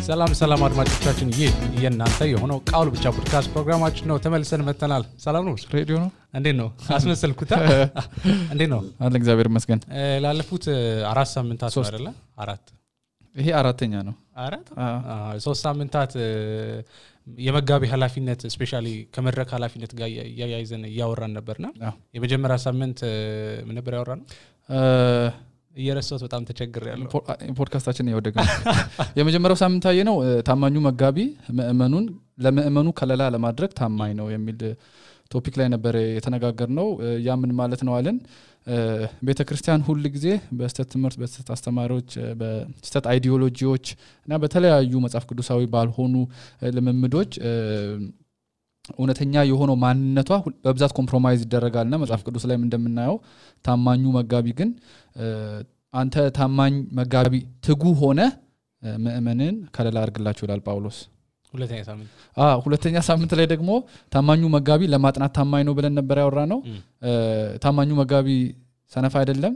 ሰላም አድማጮቻችን ይህ የእናንተ የሆነው ቃሉ ብቻ ፖድካስት ፕሮግራማችን ነው ተመልሰን መተናል ሰላም ነው ሬዲዮ ነው እንዴት ነው አስመሰልኩታ እንዴት ነው አለ እግዚአብሔር ይመስገን ላለፉት 4 ሳምንታት ነው አይደለ 4 ይሄ አራተኛ ነው 3 ሳምንታት የመጋቢ ኃላፊነት ስፔሻሊ ከመድረክ ኃላፊነት ጋር ያያይዘን ያወራን ነበርና የመጀመሪያ ሳምንት ምን ነበር ያወራነው እየረሳሁት በጣም ተቸግሬያለሁ ፖድካስታችን ያወደገ የመጀመሪያው ሳምንት አየነው ታማኙ መጋቢ ለምእመኑ ከለላ ለማድረግ ታማኝ ነው የሚል ቶፒክ ላይ ነበር የተነጋገርነው ያ ምን ማለት ነው አለን ቤተክርስቲያን ሁሉ ጊዜ በስተት ትምህርት በስተት አስተማሪዎች በስተት አይዲዮሎጂዎች እና በተለያዩ መጽሐፍ ቅዱሳዊ ባልሆኑ ልምምዶች እውነተኛ የሆነው ማንነቷ በብዛት ኮምፕሮማይዝ ይደረጋልና መጽሐፍ ቅዱስ ላይም እንደምናየው ታማኙ መጋቢ ግን አንተ ታማኝ መጋቢ ትጉ ሆነ ምእመንን ከለላ አድርግላቸው ይላል ጳውሎስ ሁለተኛ ሳምንት ላይ ደግሞ ታማኙ መጋቢ ለማጥናት ታማኝ ነው ብለን ነበር ያወራነው ታማኙ መጋቢ ሰነፍ አይደለም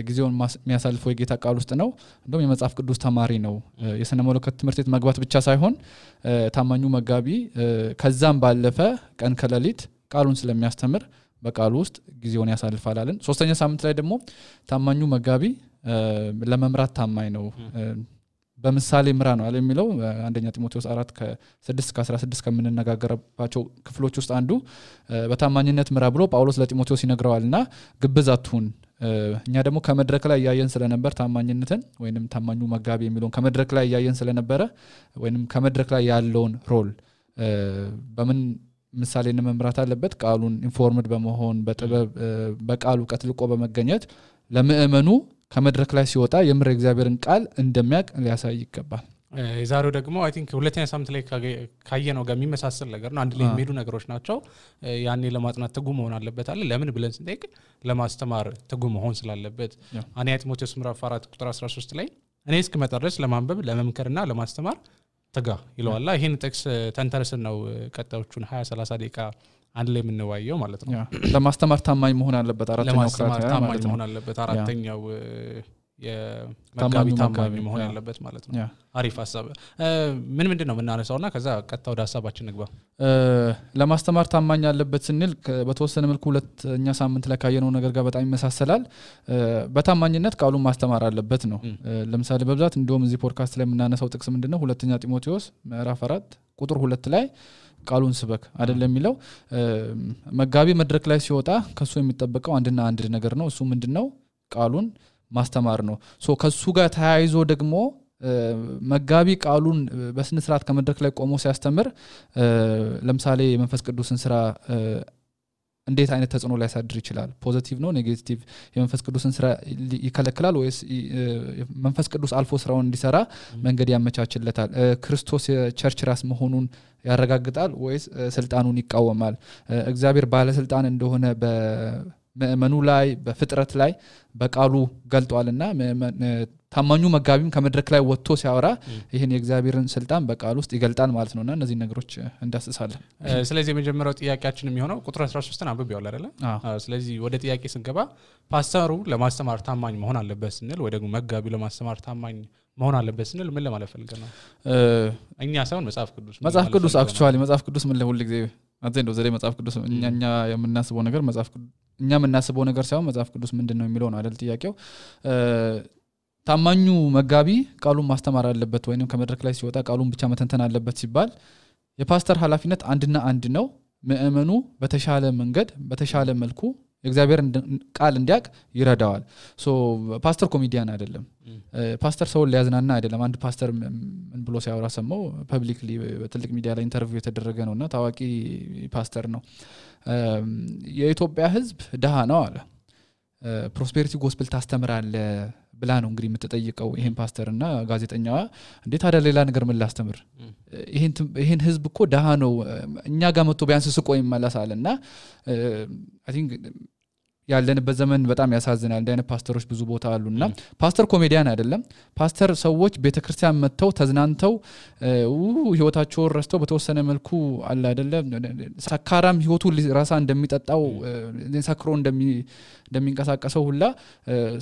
ጊዜውን የሚያሳልፈው የጌታ ቃል ውስጥ ነው እንደውም የመጽሐፍ ቅዱስ ተማሪ ነው የሰነ መለኮት ትምህርት ቤት መግባት ብቻ ሳይሆን ታማኙ መጋቢ ከዛም ባለፈ ቀን ከሌሊት ቃሉን ስለሚያስተምር በቃሉ ውስጥ ጊዜውን ያሳልፋል አለን ሶስተኛ ሳምንት ላይ ደግሞ ታማኙ መጋቢ ለመምራት ታማኝ ነው በምሳሌ ምራ ነው አለ የሚለው አንደኛ ጢሞቴዎስ 4 ከ6 እስከ 16 ከመነጋገርባቸው ክፍሎች ውስጥ አንዱ በታማኝነት ምራ ብሎ ጳውሎስ ለጢሞቴዎስ ይነግረዋልና ግብዝ አትሁን እኛ ደግሞ ከመድረክ ላይ ያያየን ስለነበር ታማኝነትን ወይንም ታማኙ መጋቢ የሚለውን ከመድረክ ላይ ያያየን ስለነበረ ወይንም ከመድረክ ላይ ያለውን ሮል በምን ምሳሌን መምራት አለበት ቃሉን ኢንፎርምድ በመሆን በጥበብ በቃሉ ቀጥልቆ በመገኘት ለምእመኑ ከመድረክ ላይ ሲወጣ የምር እግዚአብሔርን ቃል እንደሚያቅ ሊያሳይ ይገባል የዛሬው ደግሞ አይ ቲንክ ሁለተኛ ሳምንት ላይ ካየነው ጋር የሚመሳሰል ነገር ነው አንድ ላይ የሚሄዱ ነገሮች ናቸው ያኔ ለማጥናት ትጉ መሆን አለበት አለ ለምን ብለን ስንጠይቅ ለማስተማር ትጉ መሆን ስላለበት አንያ ጢሞቴዎስ ምዕራፍ 4 ቁጥር 13 ላይ እኔ እስክመጣ ድረስ ለማንበብ ለመምከርና ለማስተማር ትጋ ይለዋል ይሄን ጥቅስ ተንተርሰን ነው ቀጣዮቹን 20-30 ደቂቃ አንድ ላይ የምንዋየው ማለት ነው ለማስተማር ታማኝ መሆን አለበት አራተኛው ለማስተማር ታማኝ መሆን አለበት አራተኛው የመጋቢ ታማኝ መሆን ያለበት ማለት ነው አሪፍ ሐሳብ ምንድነው የምናነሳውና ከዛ ቀጣ ወደ ሐሳባችን ንግባ ለማስተማር ታማኝ ያለበት ስንል በተወሰነ መልኩ ሁለተኛ ሳምንት ላይ ካየነው ነገር ጋር በጣም ይመሳሰላል በታማኝነት ቃሉን ማስተማር አለበት ነው ለምሳሌ በብዛት እንደውም እዚህ ፖድካስት ላይ የምናነሳው ጥቅስ ምንድነው ሁለተኛ ጢሞቴዎስ ምዕራፍ 4 ቁጥር 2 ላይ ቃሉን ስበክ አይደለም የሚለው መጋቢ መድረክ ላይ ሲወጣ ከሱ የሚጠበቀው አንድና አንድ ነገር ነው እሱ ምንድነው ቃሉን ማስተማር ነው ሶ ከሱ ጋር ተያይዞ ደግሞ መጋቢ ቃሉን በስነ ስርዓት ከመድረክ ላይ ቆሞ ሲያስተምር ለምሳሌ የመንፈስ ቅዱስን ስራ እንዴት አይነት ተጽዕኖ ሊያሳድር ይችላል ፖዚቲቭ ነው ኔጌቲቭ የመንፈስ ቅዱስን ስራ ይከለክላል ወይስ መንፈስ ቅዱስ አልፎ ስራውን እንዲሰራ መንገድ ያመቻችለታል ክርስቶስ የቸርች ራስ መሆኑን ያረጋግጣል ወይስ ስልጣኑን ይቃወማል እግዚአብሔር ባለ ስልጣን እንደሆነ በመእመኑ ላይ በፍጥረት ላይ በቃሉ ገልጧልና ታማኙ መጋቢም ከመድረክ ላይ ወጥቶ ሲያወራ ይሄን የእግዚአብሔርን ስልጣን በቃሉ ውስጥ ይገልጣል ማለት ነውና እነዚህ ነገሮች እንዳስሳለን ስለዚህ የመጀመሪያው ጥያቄያችን የሚሆነው ቁጥር 13ን አንብቤው አይደለ ስለዚህ ወደ ጥያቄ ስንገባ ፓስተሩ ለማስተማር ታማኝ መሆን አለበት ስንል ወይ ደግሞ መጋቢው ለማስተማር ታማኝ መሆን አለበት ስንል ምን ለማለት ፈልገን ነው እኛ ሳይሆን መጽሐፍ ቅዱስ አክቹአሊ መጽሐፍ ቅዱስ ምን ለሁሉ ጊዜ አንተ እንደው ዘሬ መጽሐፍ ቅዱስ እኛ የምናስበው ነገር እኛ የምናስበው ነገር ሳይሆን መጽሐፍ ቅዱስ ምንድነው የሚለው ነው አይደል ጥያቄው ታማኙ መጋቢ ቃሉን ማስተማር አለበት ወይንም ከመድረክ ላይ ሲወጣ ቃሉን ብቻ መተንተን አለበት ሲባል የፓስተር ኃላፊነት አንድና አንድ ነው ምእመኑ በተሻለ መንገድ በተሻለ መልኩ የእግዚአብሔር ቃል እንዲያቅ ይረዳዋል ሶ ፓስተር ኮሜዲያን አይደለም ፓስተር ሰው ሊያዝናና አይደለም አንድ ፓስተር ምን ብሎ ሲያወራ ሰማው ፐብሊክሊ በትልቅ ሚዲያ ላይ ኢንተርቪው የተደረገ ነውና ታዋቂ ፓስተር ነው የኢትዮጵያ ህዝብ ደሃ ነው አለ ፕሮስፔሪቲ ጎስፔል ታስተምራለ ብላ ነው እንግዲህ የምትጠይቀው ይሄን ፓስተርና ጋዜጠኛዋ እንዴት አደ ሌላ ነገር ምን ላስተምር ይሄን ህዝብ እኮ ደሃ ነው እኛ ጋር መጥቶ ቢያንስ ስቆ ይመለሳልና አይ ቲንክ ያለንበት ዘመን በጣም ያሳዝናል እንደ አይነት ፓስተሮች ብዙ ቦታ አሉና ፓስተር ኮሜዲያን አይደለም ፓስተር ሰዎች ቤተክርስቲያን መጥተው ተዝናንተው ህይወታቸው ረስተው በተወሰነ መልኩ አለ አይደለም ሰካራም ህይወቱ ራሳ እንደሚጠጣው ሰክሮ እንደሚንቀሳቀሰው ሁላ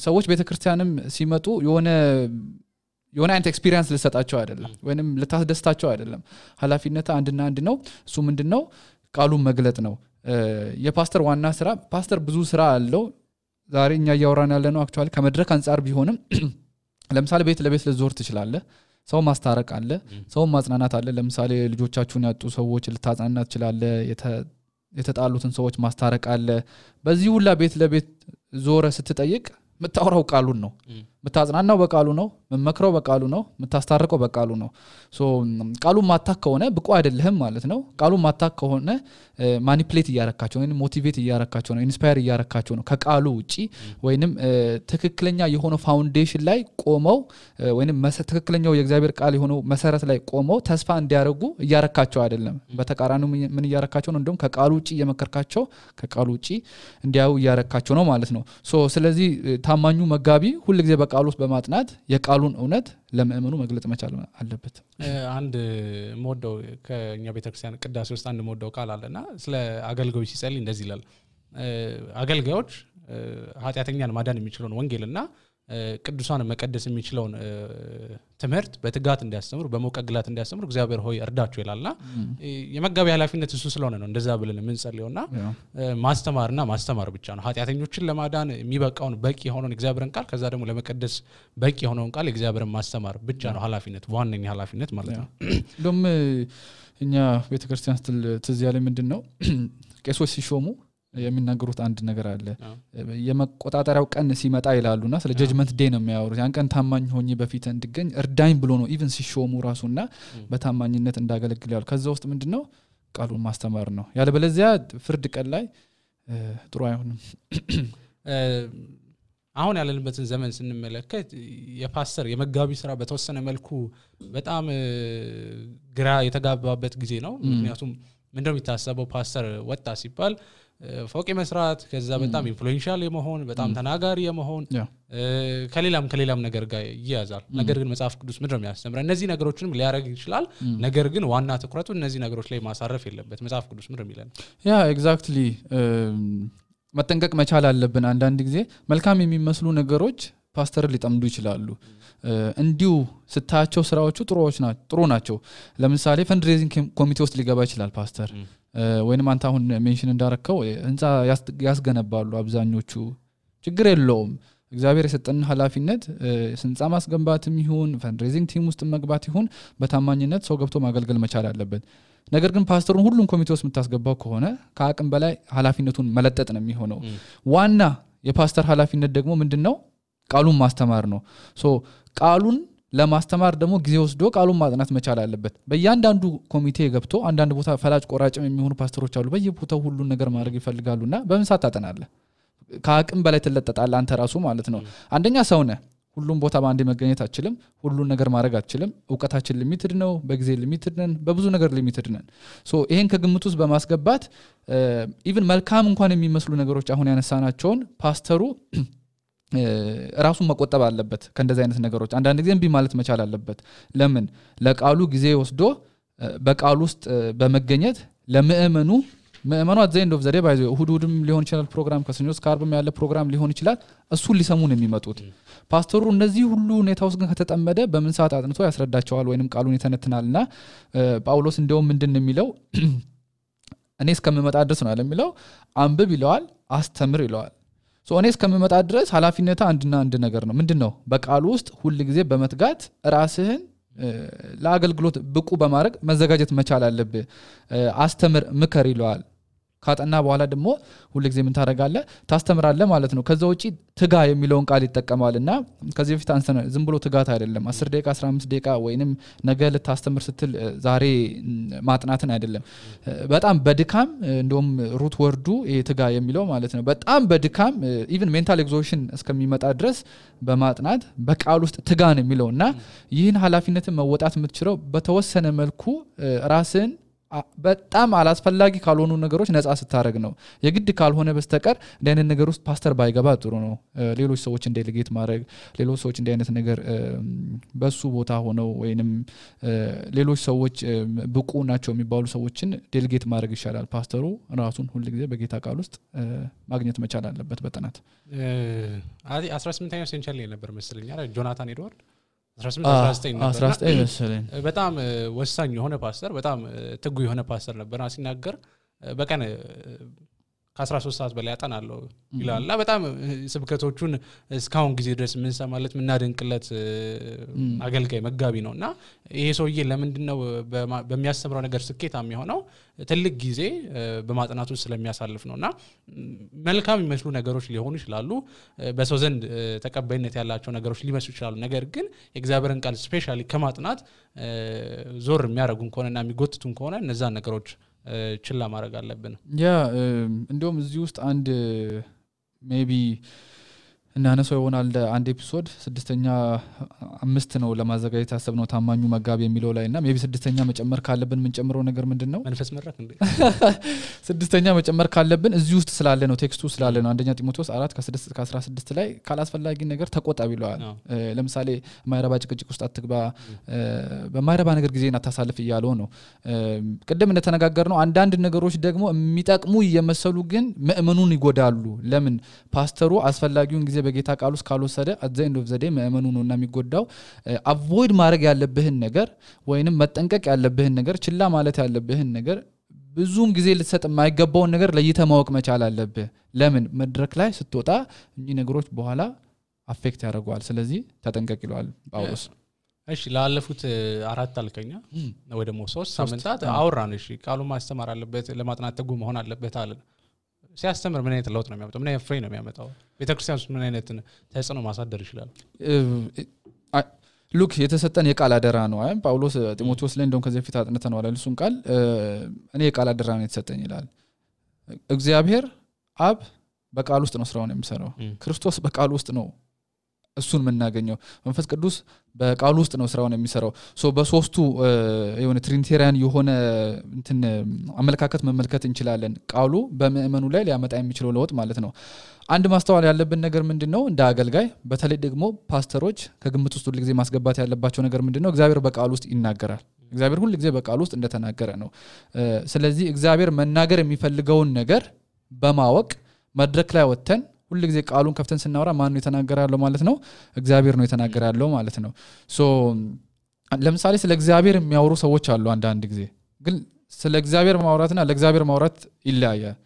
ሰዎች ቤተክርስቲያንም ሲመጡ የሆነ አይነት ኤክስፒሪየንስ ልሰጣቸው አይደለም ወይንም ልታስደስታቸው አይደለም ኃላፊነት አንድና አንድ ነው እሱ ምንድነው ቃሉን መግለጥ ነው የፓስተር ዋና ስራ ፓስተር ብዙ ስራ አለው ዛሬ እኛ ያወራን ያለነው አክቹአሊ ከመድረክ አንፃር ቢሆንም ለምሳሌ ቤት ለቤት ልዞር ትችላለህ ሰው ማስታረቅ አለ ሰው ማጽናናት አለ ለምሳሌ ልጆቻችሁን ያጡ ሰዎች ልታጽናና ትችላለህ የተጣሉትን ሰዎች ማስታረቅ አለ በዚህ ሁላ ቤት ለቤት ዞረ ስትጠይቅ መታወራው ቃሉን ነው መታጽናናው በቃሉ ነው መመክረው በቃሉ ነው መታስታርቀው በቃሉ ነው ሶ ቃሉ ማታክ ከሆነ ብቁ አይደለህም ማለት ነው ቃሉ ማታክ ከሆነ ማኒፕሌት ያያረካቸው ወይንም ሞቲቬት ያያረካቸው ነው ኢንስፓየር ያያረካቸው ነው ከቃሉ ውጪ ወይንም ትክክለኛ የሆነ ፋውንዴሽን ላይ ቆመው ወይንም ትክክለኛው የእግዚአብሔር ቃል የሆነው መሰረት ላይ ቆመው ተስፋ እንዲያረጉ ያያረካቸው አይደለም በተቃራኒው ምን ያያረካቸው ነው እንደውም ከቃሉ ውጪ የመከርካቸው ከቃሉ ውጪ እንዲያው ያያረካቸው ነው ማለት ነው ሶ ስለዚህ ታማኙ መጋቢ ሁሉ ጊዜ በቃሉ ውስጥ በማጥናት የቃሉን እውነት ለምእመኑ መግለጽ መቻል አለበት አንድ ሞደው ከኛ ቤተክርስቲያን ቅዳሴ ውስጥ አንድ ሞደው ቃል አለና ስለ አገልጋዮች ሲጸልይ እንደዚህ ይላል አገልጋዮች ኃጢያተኛን ማዳን የሚችለውን ወንጌልና ቅዱሳን መቀደስ የሚችለውን ትምህርት በትጋት እንዲያስተምሩ በመቀግላት እንዲያስተምሩ እግዚአብሔር ሆይ እርዳቸው ይላልና የመጋቢ ኃላፊነት እሱ ስለሆነ ነው እንደዛ ብለን የምንጸልየውና ማስተማርና ማስተማር ብቻ ነው ኃጢያተኞችን ለማዳን የሚበቃውን በቂ የሆነውን እግዚአብሔርን ቃል ከዛ ደግሞ ለመቀደስ በቂ የሆነውን ቃል እግዚአብሔርን ማስተማር ብቻ ነው ኃላፊነት ዋነኛ ኃላፊነት ማለት ነው ደም እኛ ቤተክርስቲያን ትዝ ያለ ምንድነው ቄሶች ሲሾሙ የሚናገሩት አንድ ነገር አለ የመቆጣጣሪያው ቀን ሲመጣ ይላሉና ስለ ጀጅመንት ዴይ ነው የሚያወሩት ያን ቀን ታማኝ ሆኜ በፊት እንድገኝ እርዳኝ ብሎ ነው ኢቭን ሲሾሙ ራሱና በታማኝነት እንዳገለግል ያሉ ከዛ ውስጥ ምንድነው ቃሉን ማስተማር ነው ያለ በለዚያ ፍርድ ቀን ላይ ጥሩ አይሆንም አሁን ያለንበትን ዘመን ስንመለከት የፓስተር የመጋቢ ስራ በተወሰነ መልኩ በጣም ግራ የተጋባበት ጊዜ ነው ምክንያቱም ምንድነው የሚታሰበው ፓስተር ወጣ ሲባል ፎቅ መስራት ከዛ በጣም ኢንፍሉዌንሻል የመሆን በጣም ተናጋሪ የመሆን ከሌላም ነገር ጋር ይያዛል ነገር ግን መጽሐፍ ቅዱስ ምንድነው የሚያስተምረው እነዚህ ነገሮችንም ሊያረግ ይችላል ነገር ግን ዋና ትኩረቱ እነዚህ ነገሮች ላይ ማሳረፍ የለበት መጽሐፍ ቅዱስ ምንድነው የሚለን ያ ኤግዛክትሊ መጠንቀቅ መቻል አለብን አንዳንድ ጊዜ መልካም የሚመስሉ ነገሮች ፓስተር ሊጠምዱ ይችላሉ እንዲሁ ስታቸው ስራዎቹ ጥሩ ናቸው ለምሳሌ ፈንድሬዚንግ ኮሚቴ ውስጥ ሊገባ ይችላል ፓስተር ወይንም አንተ አሁን ሜንሽን እንዳረከው ህንጻ ያስገነባሉ አብዛኞቹ ችግር የለውም እግዚአብሔር የሰጠን ኃላፊነት ህንጻ ማስገንባትም ይሁን ፈንድሬዚንግ ቲም ውስጥ መግባት ይሁን በታማኝነት ሰው ገብቶ ማገልገል መቻል አለበት ነገር ግን ፓስተሩን ሁሉም ኮሚቴ ውስጥ የምታስገባው ከሆነ ከአቅም በላይ ኃላፊነቱን መለጠጥ ነው የሚሆነው ዋና የፓስተር ኃላፊነት ደግሞ ምንድነው ቃሉን ማስተማር ነው ሶ ቃሉን ለማስተማር ደግሞ ጊዜ ወስዶ ቃሉን ማጥናት መቻል አለበት በእያንዳንዱ ኮሚቴ ገብቶ አንዳንድ ቦታ ፈላጭ ቆራጭም የሚሆኑ ፓስተሮች አሉ በየቦታው ሁሉን ነገር ማድረግ ይፈልጋሉና በምን ሰዓት ታጠናለህ ከአቅም በላይ ተለጠጣለህ አንተ ራሱ ማለት ነው አንደኛ ሰው ነህ ሁሉም ቦታ ባንዴ መገኘት አትችልም ሁሉን ነገር ማድረግ አትችልም ዕውቀታችን ሊሚትድ ነው በጊዜ ሊሚትድ ነን በብዙ ነገር ሊሚትድ ነን ሶ ይሄን ከግምት ውስጥ በማስገባት ኢቭን መልካም እንኳን የሚመስሉ ነገሮች አሁን ያነሳናቸውን ፓስተሩ ራሱን መቆጠብ አለበት ከእንደዚህ አይነት ነገሮች አንዳንድ ጊዜ እንቢ ማለት መቻል አለበት ለምን ለቃሉ ጊዜ ወስዶ በቃሉ ውስጥ በመገኘት ለምእመኑ አዘይንድ ኦፍ ዘዴ ባይዘው እሁድም ሊሆን ይችላል ፕሮግራም ከሰኞ እስከ ዓርብም ያለ ፕሮግራም ሊሆን ይችላል እሱ ሊሰሙ ነው የሚመጡት ፓስተሩ እነዚህ ሁሉ ሁኔታዎች ግን ከተጠመደ በምን ሰዓት አጥንቶ ያስረዳቸዋል ወይንም ቃሉን ይተነትናልና ጳውሎስ እንደውም ምንድነው የሚለው እኔ እስከምመጣ ድረስ ነው የሚለው አንብብ ይለዋል አስተምር ይለዋል ሶ እኔ እስከምመጣ ድረስ ኃላፊነቱ አንድና አንድ ነገር ነው ምንድነው በቃሉ ውስጥ ሁሉ ጊዜ በመትጋት ራስህን ለአገልግሎት ብቁ በማድረግ መዘጋጀት መቻል አለብህ አስተምር ምከር ይለዋል ካጠና በኋላ ደግሞ ሁሉ ጊዜ ምን ታረጋለህ ታስተምራለህ ማለት ነው ከዛው እጪ ትጋ የሚለውን ቃል ይተከማልና ከዚህ በፊት አንስተን ዝም ብሎ ትጋት አይደለም 10 ደቂቃ 15 ደቂቃ ወይንም ነገ ለታስተምር ስትል ዛሬ ማጥናትን አይደለም በጣም በድካም እንደውም ሩት ወርዱ ትጋ የሚለው ማለት ነው በጣም በድካም ኢቭን ሜንታል ኤግዞሽን እስከሚመጣ ድረስ በማጥናት በቃል ውስጥ ትጋ ነው የሚለውና ይህን ኃላፊነትን መወጣት የምትችለው በተወሰነ መልኩ ራስን በጣም አላስፈላጊ ካልሆኑ ነገሮች ነፃ ስታረግ ነው የግድ ካልሆነ በስተቀር እንደዚህ ነገር ውስጥ ፓስተር ባይገባ ጥሩ ነው ሌሎች ሰዎች ዴሊጌት ማድረግ ሌሎች ሰዎች እንደዚህ አይነት ነገር በሱ ቦታ ሆነው ወይንም ሌሎች ሰዎች ብቁ ናቸው የሚባሉ ሰዎችን ዴሊጌት ማድረግ ይሻላል ፓስተሩ ራሱን ሁሉ ጊዜ በጌታ ቃል ውስጥ ማግኘት መቻል አለበት በጥናት 18ኛው ሴንቸሪ ነበር መስለኛ ጆናታን ኤድዋርድ 18 19 መሰለኝ በጣም ወሳኝ የሆነ ፓስተር በጣም ትጉ የሆነ ፓስተር ነበርና ሲናገር በቀን ከ13 ሰዓት በላይ ያጠናለው ይላልና በጣም ስብከቶቹን እስካሁን ጊዜ ድረስ ምን ሰማለት ምናደንቅለት አገልጋይ መጋቢ ነውና ይሄ ሰውዬ ለምንድነው በሚያስተምረው ነገር ስኬታም የሆነው ትልቅ ጊዜ በማጥናቱ ስለሚያሳልፍ ነውና መልካም የሚመስሉ ነገሮች ሊሆኑ ይችላሉ በሰው ዘንድ ተቀባይነት ያላቸው ነገሮች ሊመስሉ ይችላሉ ነገር ግን የእግዚአብሔርን ቃል ስፔሻሊ ከማጥናት ዞር የሚያረጉን ከሆነና የሚጎትቱን ከሆነ እነዛ ነገሮች ችላ ማድረግ አለብን ያ እንደውም እዚህ ውስጥ አንድ ሜቢ እናነሳው ይሆናል አንድ ኤፒሶድ 6ኛ 5 ነው ለማዘጋጀት ያሰብነው ታማኙ መጋቢ የሚለው ላይና ሜቢ 6ኛ መጨመር ካለብን ምን ጨምረው ነገር ምንድነው መንፈስ መረክ እንዴ 6ኛ መጨመር ካለብን እዚህ ውስጥ ስላለ ነው ቴክስቱ ስላለ ነው አንደኛ ጢሞቴዎስ 4 ከ6 እስከ 16 ላይ ካላስፈላጊ ነገር ተቆጣቢ ይለዋል ለምሳሌ ማይረባ ጭቅጭቅ ውስጥ አትግባ በማይረባ ነገር ጊዜን አታሳልፍ ይያለው ነው ቀደም እንደተነጋገርነው አንዳንድ ነገሮች ደግሞ የሚጠቅሙ እየመሰሉ ግን ምእመኑን ይጎዳሉ ለምን ፓስተሩ አስፈላጊውን ጊዜ በጌታ ቃል ውስጥ ካልወሰደ at the end of the day ምእመኑ ነውና የሚጎዳው አቮይድ ማድረግ ያለብህን ነገር ወይንም መጠንቀቅ ያለብህን ነገር ችላ ማለት ያለብህን ነገር ብዙም ጊዜ ልትሰጥ የማይገባውን ነገር ለይተህ ማወቅ መቻል አለብህ ለምን መድረክ ላይ ስትወጣ እኚህ ነገሮች በኋላ አፌክት ያደርጋሉ ስለዚህ ተጠንቀቅ ይላል ጳውሎስ እሺ ላለፉት 4 አልከኛ ወይ ደግሞ 3 ሳምንታት አውራን እሺ ቃሉ ማስተማር አለበት ለማጥናት ተጉ መሆን አለበት አለ ሲያስተምር ምን አይነት ለውጥ ነው የሚያመጣው ምን አይነት ፍሬ ነው የሚያመጣው ቤተክርስቲያን ውስጥ ምን አይነት ተጽዕኖ ማሳደር ይችላል ሉክ የተሰጠን የቃል አደራ ነው አይደል ጳውሎስ ጢሞቴዎስ ላይ እንደውም ከዚህ በፊት አጥንተነው አለ እሱን ቃል እኔ የቃል አደራ ነው የተሰጠኝ ይላል እግዚአብሔር አብ በቃል ውስጥ ነው ስራውን የሚሰራው ክርስቶስ በቃል ውስጥ ነው እሱን መናገኘው መንፈስ ቅዱስ በቃሉ ውስጥ ነው ስራውን የሚሰራው ሶ በሶስቱ የሆነ ትሪኒቴሪያን የሆነ እንትን አመለካከት መመልከት እንችላለን ቃሉ በምእመኑ ላይ ሊያመጣ የሚችለው ለውጥ ማለት ነው አንድ ማስተዋል ያለብን ነገር ምንድነው እንደ አገልጋይ በተለይ ደግሞ ፓስተሮች ከግምት ውስጥ ሁሉ ጊዜ ማስገባት ያለባቸው ነገር ምንድነው እግዚአብሔር በቃሉ ውስጥ ይናገራል እግዚአብሔር ሁሉ ጊዜ በቃሉ ውስጥ እንደተናገረ ነው ስለዚህ እግዚአብሔር መናገር የሚፈልገውን ነገር በማወቅ መድረክ ላይ ወጥተን ሁሉ ጊዜ ቃሉን ከፍተን ስናወራ ማን ነው የተናገራለው ማለት ነው እግዚአብሔር ነው የተናገራለው ማለት ነው ሶ ለምሳሌ ስለ እግዚአብሔር የሚያወሩ ሰዎች አሉ አንድ ጊዜ ግን ስለ እግዚአብሔር ማውራትና ለእግዚአብሔር ማውራት ይለያያል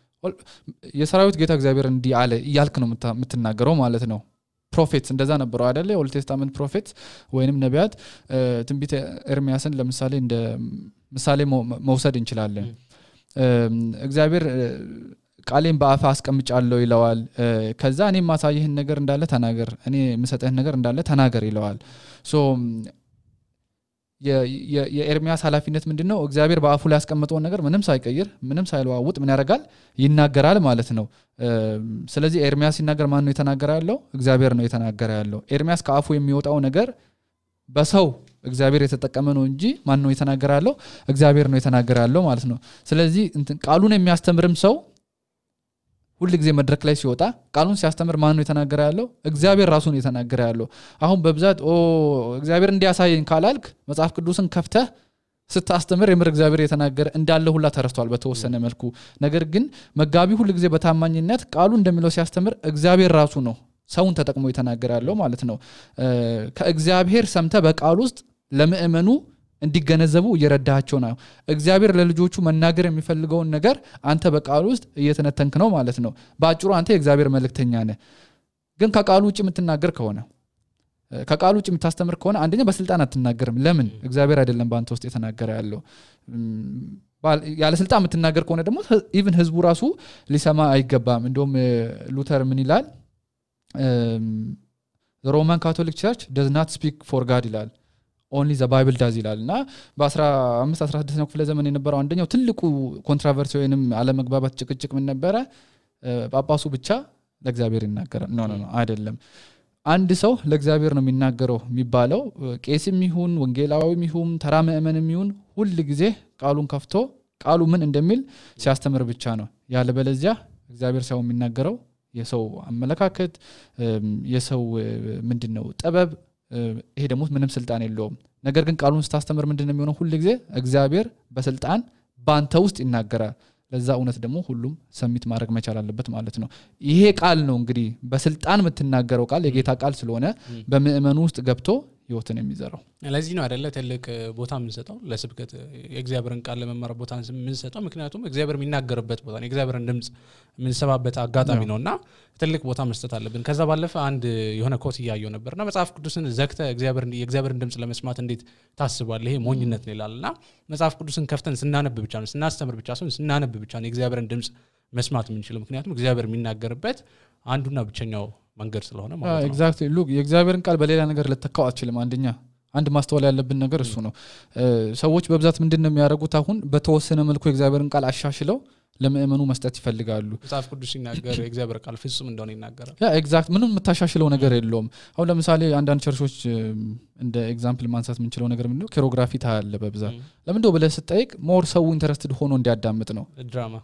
የሰራዊት ጌታ እግዚአብሔር እንዲህ አለ ይያልክ ነው የምትናገረው ማለት ነው ፕሮፌትስ እንደዛ ነበሩ አይደለ ኦልድ ቴስታመንት ፕሮፌትስ ወይንም ነቢያት ትንቢተ ኤርሚያስን ለምሳሌ እንደ ምሳሌ መውሰድ እንችላለን እግዚአብሔር ቃሌን በአፋ አስቀምጫለሁ ይለዋል ከዛ እኔ ማሳየህን ነገር እንዳለ ተናገር እኔ ምሰጠህን ነገር እንዳለ ተናገር ይለዋል ሶ የኤርሚያስ ኃላፊነት ምንድነው እግዚአብሔር በአፉ ላይ ያስቀመጠው ነገር ምንም ሳይቀይር ምንም ሳይለዋውጥ ምን ያደርጋል ይናገራል ማለት ነው ስለዚህ ኤርሚያስ ሲናገር ማን ነው የተናገረ ያለው እግዚአብሔር ነው የተናገረ ያለው ኤርሚያስ ከአፉ የሚወጣው ነገር በሰው እግዚአብሔር የተጠቀመ ነው እንጂ ማን ነው የተናገረ ያለው እግዚአብሔር ነው የተናገረ ያለው ማለት ነው ስለዚህ ቃሉን የሚያስተምርም ሰው ሁሉ ጊዜ መድረክ ላይ ሲወጣ ቃሉን ሲያስተምር ማን ነው የተናገረ ያለው እግዚአብሔር ራሱ ነው የተናገረ ያለው አሁን በብዛት እግዚአብሔር እንዲያሳየኝ ካላልክ መጽሐፍ ቅዱስን ከፍተህ ስታስተምር የምር እግዚአብሔር የተናገረ እንዳለ ሁላ ተረስቷል በተወሰነ መልኩ ነገር ግን መጋቢ ሁሉ ጊዜ በታማኝነት ቃሉ እንደሚለው ሲያስተምር እግዚአብሔር ራሱ ነው ሰውን ተጠቅሞ የተናገረ ያለው ማለት ነው ከእግዚአብሔር ሰምተ በቃሉ ውስጥ ለምእመኑ እንዲገነዘቡ እየረዳቸው ነው እግዚአብሔር ለልጆቹ መናገር የሚፈልገውን ነገር አንተ በቃሉ ውስጥ እየተነተንክ ነው ማለት ነው ባጭሩ አንተ የእግዚአብሔር መልእክተኛ ነህ ግን ከቃሉ ውጭ የምትናገር ከሆነ ከቃሉ ውጭ የምታስተምር ከሆነ አንደኛ በስልጣን አትናገርም ለምን እግዚአብሔር አይደለም በአንተ ውስጥ የተናገረ ያለው ያለ ስልጣን የምትናገር ከሆነ ደግሞ ኢቭን ህዝቡ ራሱ ሊሰማ አይገባም እንደውም ሉተር ምን ይላል the Roman Catholic Church does not speak for God ይላል only the Bible does ይላልና በ15 16ኛው ክፍለ ዘመን የነበረው አንደኛው ትልቁ ኮንትራቨርሲ ወይንም አለመግባባት ጭቅጭቅ ምን ነበረ ጳጳሱ ብቻ ለእግዚአብሔር ይናገራል ኖ አይደለም አንድ ሰው ለእግዚአብሔር ነው የሚናገረው የሚባለው ቄስም ይሁን ወንጌላዊም ይሁን ተራ ምእመንም ይሁን ሁሉ ጊዜ ቃሉን ከፍቶ ቃሉ ምን እንደሚል ሲያስተምር ብቻ ነው ያለበለዚያ እግዚአብሔር ሰው የሚናገረው የሰው አመለካከት የሰው ምንድነው ጥበብ ይሄ ደግሞ ምንም ስልጣን የለውም ነገር ግን ቃሉን ስታስተምር ምንድነው የሚሆነው ሁሉ ጊዜ እግዚአብሔር በስልጣን ባንተ ውስጥ ይናገራል ለዛ እውነት ደግሞ ሁሉም ሰሚት ማድረግ መቻል አለበት ማለት ነው ይሄ ቃል ነው እንግዲህ በስልጣን የምትናገረው ቃል የጌታ ቃል ስለሆነ በምእመኑ ውስጥ ገብቶ ህይወትን የሚዘራው ለዚህ ነው አይደለ ትልቅ ቦታ የምንሰጠው ለስብከት የእግዚአብሔርን ቃል ለመማር ቦታ የምንሰጠው ምክንያቱም እግዚአብሔር የሚናገርበት ቦታ ነው የእግዚአብሔርን ድምጽ የምንሰባበት አጋጣሚ ነውና ትልቅ ቦታ መስጠት አለብን ከዛ ባለፈ አንድ የሆነ ኮት ያያየው ነበርና መጽሐፍ ቅዱስን ዘግተ የእግዚአብሔርን ድምጽ ለመስማት እንዴት ታስባለህ ይሄ ሞኝነት ነው ይላልና መጽሐፍ ቅዱስን ከፍተን ስናነብ ብቻ ነው ስናስተምር ብቻ ነው ስናነብ ብቻ ነው የእግዚአብሔርን ድምጽ መስማት የምንችለው ምክንያቱም እግዚአብሔር የሚናገርበት አንዱና ብቸኛው መንገድ ስለሆነ ማለት ነው ኤግዛክትሊ ሉክ የእግዚአብሔርን ቃል በሌላ ነገር ልተካው አትችልም አንድ ማስተዋል ያለብን ነገር እሱ ነው ሰዎች በብዛት ምንድነው የሚያደርጉት አሁን በተወሰነ መልኩ የእግዚአብሔርን ቃል አሻሽለው ለምእመኑ መስጠት ይፈልጋሉ መጽሐፍ ቅዱስ ሲናገር የእግዚአብሔር ቃል ፍጹም እንደሆነ ይናገራል ኤግዛክት ምንም የምታሻሽለው ነገር የለውም አሁን ለምሳሌ አንዳንድ ቸርቾች እንደ ኤግዛምፕል ማንሳት የምንችለው ነገር ምንድነው ኬሮግራፊ ታያለ በብዛት ለምንድነው ብለህ ስጠይቅ ሞር ሰው ኢንተረስትድ ሆኖ እንዲያዳምጥ ነው ድራማ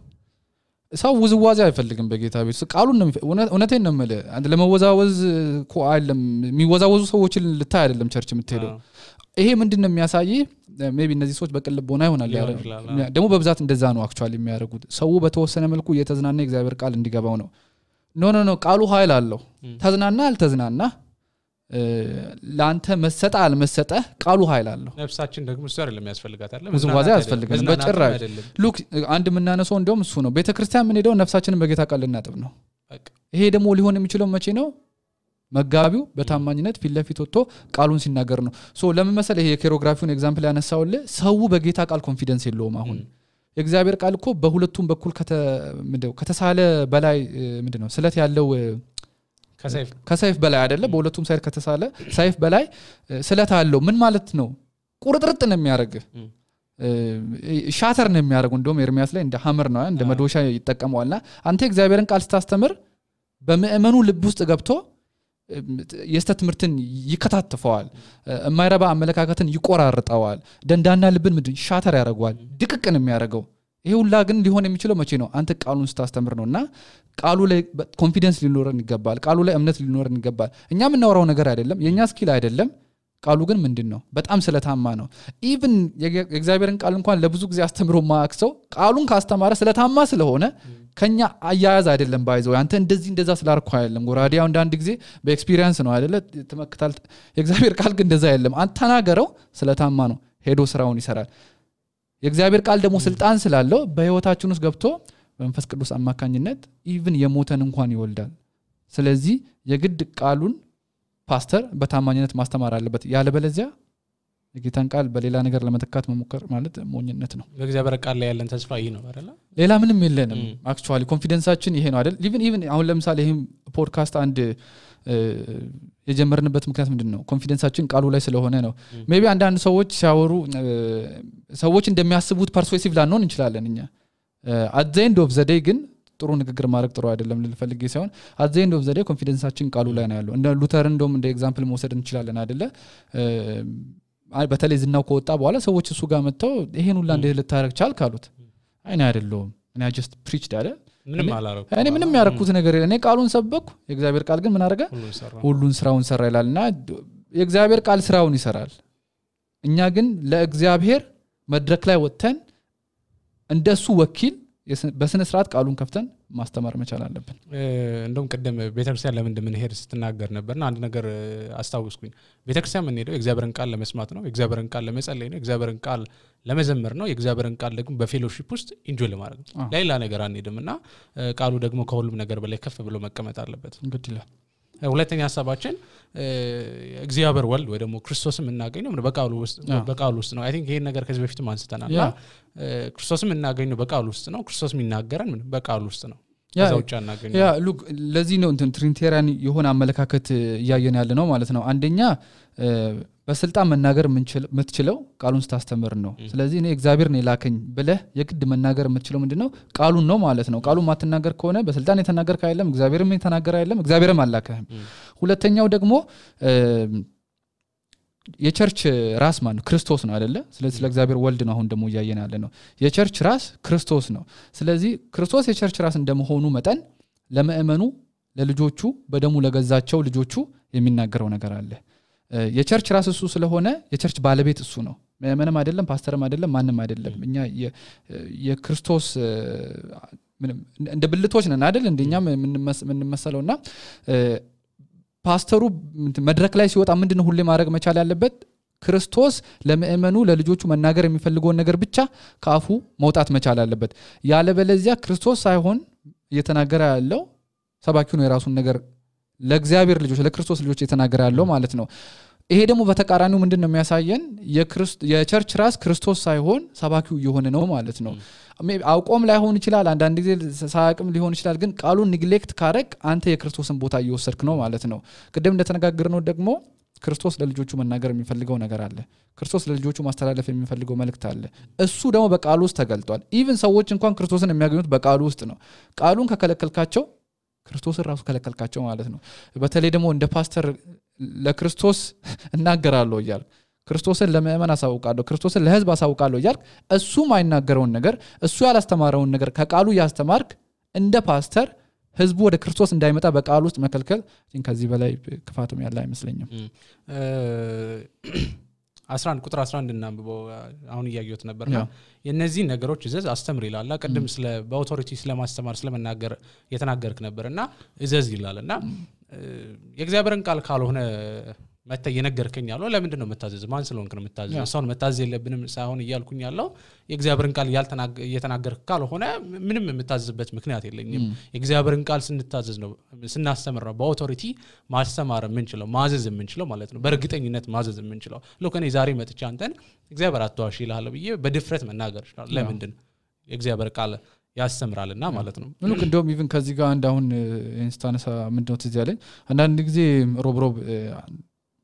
ሰው ውዝዋዜ አይፈልግም በጌታ ቤት ቃሉን ነው እውነቴን ነው ማለት አንድ ለመወዛወዝ እኮ አይደለም የሚወዛወዙ ሰዎችን ልታይ አይደለም ቸርች የምትሄደው ይሄ ምንድነው የሚያሳይ ሜቢ እነዚህ ሰዎች በቅልቦና ይሆናል ደግሞ በብዛት እንደዛ ነው አክቹአሊ የሚያደርጉት ሰው በተወሰነ መልኩ እየተዝናና እግዚአብሔር ቃል እንዲገባው ነው ኖ ቃሉ ኃይል አለው ተዝናና አልተዝናና ላንተ መሰጣ አልመሰጠ ቃሉ ኃይል አለው ነፍሳችን ደግሞ እሱ አይደለም ያስፈልጋታል ውዝዋዜ ያስፈልጋል በጭራሽ ሉክ አንድ ምናነሳው እንደውም እሱ ነው ቤተክርስቲያን ምን ሄደው ነፍሳችንን በጌታ ቃል ልናጥብ ነው ይሄ ደግሞ ሊሆን የሚችለው መቼ ነው መጋቢው በታማኝነት ፊት ለፊት ወጥቶ ቃሉን ሲናገር ነው ሶ ለምን መሰለ ይሄ የኬሮግራፊውን ኤግዛምፕል ያነሳውልህ ሰው በጌታ ቃል ኮንፊደንስ የለውም አሁን የእግዚአብሔር ቃል እኮ በሁለቱም በኩል ከተሳለ በላይ ምንድነው ስለት ያለው ከሰይፍ በላይ አይደለ በሁለቱም ሳይድ ከተሳለ ሰይፍ በላይ ስለት አለው ምን ማለት ነው ቁርጥርጥ ነው የሚያደርግ ሻተር ነው የሚያደርገው እንደውም ኤርሚያስ ላይ እንደ ሐመር ነው እንደ መዶሻ ይተቀመዋልና አንተ እግዚአብሔርን ቃል ስታስተምር በመእመኑ ልብ ውስጥ ገብቶ የስተት ትምርትን ይከታተፈዋል የማይረባ አመለካከትን ይቆራርጣዋል ደንዳና ልብን ምድን ሻተር ያደርገዋል ድቅቅ ነው የሚያደርገው ይሄ ሁላ ግን ሊሆን የሚችለው መቼ ነው አንተ ቃሉን ስታስተምር ነውና ቃሉ ላይ ኮንፊደንስ ሊኖረን ይገባል ቃሉ ላይ እምነት ሊኖረን ይገባል እኛ የምናወራው ነገር አይደለም የኛ ስኪል አይደለም ቃሉ ግን ምንድነው በጣም ስለታማ ነው ኢቭን የእግዚአብሔርን ቃል እንኳን ለብዙ ጊዜ አስተምሮ ማክሰው ቃሉን ካስተማረ ስለታማ ስለሆነ ከኛ አያያዝ አይደለም ባይዘው አንተ እንደዛ ስላርኩ አይደለም ጎራዲያው አንድ ጊዜ በኤክስፒሪየንስ ነው አይደለ ተመክታል የእግዚአብሔር ቃል ግን እንደዛ አይደለም አንተ ተናገረው ስለታማ ነው ሄዶ ስራውን ይሰራል የእግዚአብሔር ቃል ደግሞ ስልጣን ስላለው በህይወታችን ውስጥ ገብቶ በመንፈስ ቅዱስ አማካኝነት ኢቭን የሞተን እንኳን ይወልዳል ስለዚህ የግድ ቃሉን ፓስተር በታማኝነት ማስተማር አለበት ያለበለዚያ የጌታን ቃል በሌላ ነገር ለመተካት መሞከር ማለት ሞኝነት ነው በእግዚአብሔር ቃል ላይ ያለን ተስፋ ይሄ ነው አይደል ሌላ ምንም የለንም አክቹአሊ ኮንፊደንሳችን ይሄ ነው አይደል ኢቭን አሁን ለምሳሌ ይሄም ፖድካስት አንድ የጀመርንበት ምክንያት ምንድነው ኮንፊደንሳችን ቃሉ ላይ ስለሆነ ነው ሜቢ አንዳንድ ሰዎች ሲያወሩ ሰዎች እንደሚያስቡት ፐርሱሲቭ ላንሆን እንችላለን እኛ at the end of the day ግን ጥሩ ንግግር ማድረግ ጥሩ አይደለም ልፈልግ ሳይሆን at the end of the day ኮንፊደንሳችን ቃሉ ላይ ነው ያለው እንደ ሉተር እንደውም እንደ ኤግዛምፕል መውሰድ እንችላለን አይደለ በተለይ ዝናው ከወጣ በኋላ ሰዎች እሱ ጋር መጥተው ይሄን ሁላ እንደ ልታረግ ቻልክ አሉት አይና አይደለም እኔ just preached አይደል ምንም አላረኩ እኔ ምንም ያረኩት ነገር የለም እኔ ቃሉን ሰበኩ የእግዚአብሔር ቃል ግን ምን አረጋ ሁሉን ስራውን ሰራ ይላልና የእግዚአብሔር ቃል ስራውን ይሰራል እኛ ግን ለእግዚአብሔር መድረክ ላይ ወጥተን እንደሱ ወኪል በስነ ስርዓት ቃሉን ከፍተን ማስተማር መቻል አለብን እንደውም ቀደም ቤተክርስቲያን ለምን እንደምንሄድ ስትናገር ነበርና አንድ ነገር አስታውስኩኝ ቤተክርስቲያን ምን ሄደው የእግዚአብሔርን ቃል ለመስማት ነው የእግዚአብሔርን ቃል ለመጸለይ ነው የእግዚአብሔርን ቃል ለመዘመር ነው የእግዚአብሔርን ቃል ደግሞ በፌሎሺፕ ውስጥ ኢንጆይ ለማድረግ ነው ሌላ ነገር አንሄድምና ቃሉ ደግሞ ከሁሉም ነገር በላይ ከፍ ብሎ መቀመጥ አለበት እንግዲህ ሁለተኛ ሐሳባችን እግዚአብሔር ወልድ ወይ ደግሞ ክርስቶስም እናገኘው በቃሉ ውስጥ ነው አይ ቲንክ ይሄን ነገር ከዚህ በፊትም አንስተናልና ክርስቶስም እናገኘው በቃሉ ውስጥ ነው ክርስቶስም ይናገራል በቃሉ ውስጥ ነው ያዛውጫ እናገኘው ሉክ ለዚህ ነው እንትን ትሪኒቴሪያን የሆነ አመለካከት ያያየን ያለ ነው ማለት ነው አንደኛ በስልጣን መናገር የምትችለው ቃሉን ስታስተምር ነው ስለዚህ እኔ እግዚአብሔር ነው ላከኝ ብለህ የግድ መናገር የምትችለው ምንድነው ቃሉን ነው ማለት ነው ቃሉን ማትናገር ከሆነ በስልጣን የተናገር ካይለም እግዚአብሔርም የተናገረ አይደለም እግዚአብሔርም አላከህም ሁለተኛው ደግሞ የቸርች ራስ ማን ክርስቶስ ነው አይደለ ስለዚህ ለእግዚአብሔር ወልድ ነው አሁን ደግሞ ያያየን ያለ ነው የቸርች ራስ ክርስቶስ ነው ስለዚህ ክርስቶስ የቸርች ራስ እንደመሆኑ መጠን ለመእመኑ ለልጆቹ በደሙ ለገዛቸው ልጆቹ የሚናገረው ነገር አለ የቸርች ራስ እሱ ስለሆነ የቸርች ባለቤት እሱ ነው ምንም አይደለም ፓስተርም አይደለም ማንንም አይደለም እኛ የክርስቶስ እንደ ብልቶች ነን አይደል እንደኛ ምን መሰለውና ፓስተሩ መድረክ ላይ ሲወጣ ምንድነው ሁሌ ማድረግ መቻል ያለበት ክርስቶስ ለምእመኑ ለልጆቹ መናገር የሚፈልገውን ነገር ብቻ ካፉ መውጣት መቻል አለበት ያለ በለዚያ ክርስቶስ ሳይሆን እየተናገረ ያለው ሰባኪው ነው የራሱን ነገር ለእግዚአብሔር ልጆች ለክርስቶስ ልጆች እየተናገረ ያለው ማለት ነው ይሄ ደግሞ በተቃራኒው ምንድነው የሚያሳየን የቸርች ራስ ክርስቶስ ሳይሆን ሰባኪው እየሆነ ነው ማለት ነው አውቆም ላይሆን ይችላል አንዳንድ ጊዜ ሳያቅም ሊሆን ይችላል ግን ቃሉን ኔግሌክት ካረክ አንተ የክርስቶስን ቦታ እየወሰድክ ነው ማለት ነው ቅድም እንደተነጋገርነው ደግሞ ክርስቶስ ለልጆቹ መናገር የሚፈልገው ነገር አለ ክርስቶስ ለልጆቹ ማስተላለፍ የሚፈልገው መልእክት አለ እሱ ደግሞ በቃሉ ውስጥ ተገልጧል ኢቭን ሰዎች እንኳን ክርስቶስን የሚያገኙት በቃሉ ውስጥ ነው ቃሉን ከከለከልካቸው ክርስቶስን ራሱ ከለከልካቸው ማለት ነው በተለይ ደግሞ እንደ ፓስተር ለክርስቶስ እናገራለሁ ይላል ክርስቶስን ለምእመን አሳውቃለሁ ክርስቶስን ለህዝብ አሳውቃለሁ ይላል እሱ ማይናገረውን ነገር እሱ ያላስተማረውን ነገር ከቃሉ ያስተማርክ እንደ ፓስተር ህዝቡ ወደ ክርስቶስ እንዳይመጣ በቃሉ ውስጥ መከልከል ከዚህ በላይ ክፋቱም ያለ አይመስለኝም 11 ቁጥር 11 እናንብበው አሁን ያያዩት ነበርና የነዚህ ነገሮች እዘዝ አስተምር ይላል ቀድም ስለ በአውቶሪቲ ስለማስተማር ስለመናገር የተናገርክ ነበርና እዘዝ ይላልና የእግዚአብሔርን ቃል ካልሆነ መተ የነገርከኝ ያለው ለምንድን ነው መታዘዝ ማን ስለሆንክ ነው መታዘዝ ሰውን መታዘዝ የለብንም ሳይሆን ይያልኩኝ ያለው የእግዚአብሔርን ቃል እየተናገርክ ካልሆነ ምንም መታዘዝበት ምክንያት የለኝም የእግዚአብሔርን ቃል ስንታዘዝ ነው ስናስተምር ነው በአውቶሪቲ ማስተማር የምንችለው ማዘዝ የምንችለው ማለት ነው በእርግጠኝነት ማዘዝ የምንችለው ለከኔ ዛሬ መጥቻ አንተን እግዚአብሔር አትዋሽ ይላል ብዬ በድፍረት መናገር ይችላል ለምንድን የእግዚአብሔር ቃል ያስተምራልና ማለት ነው ምንም እንደውም ኢቭን ከዚህ ጋር አንዳሁን ኢንስታንስ ምንድነው ትዝ ያለኝ አንዳንድ ጊዜ ሮብ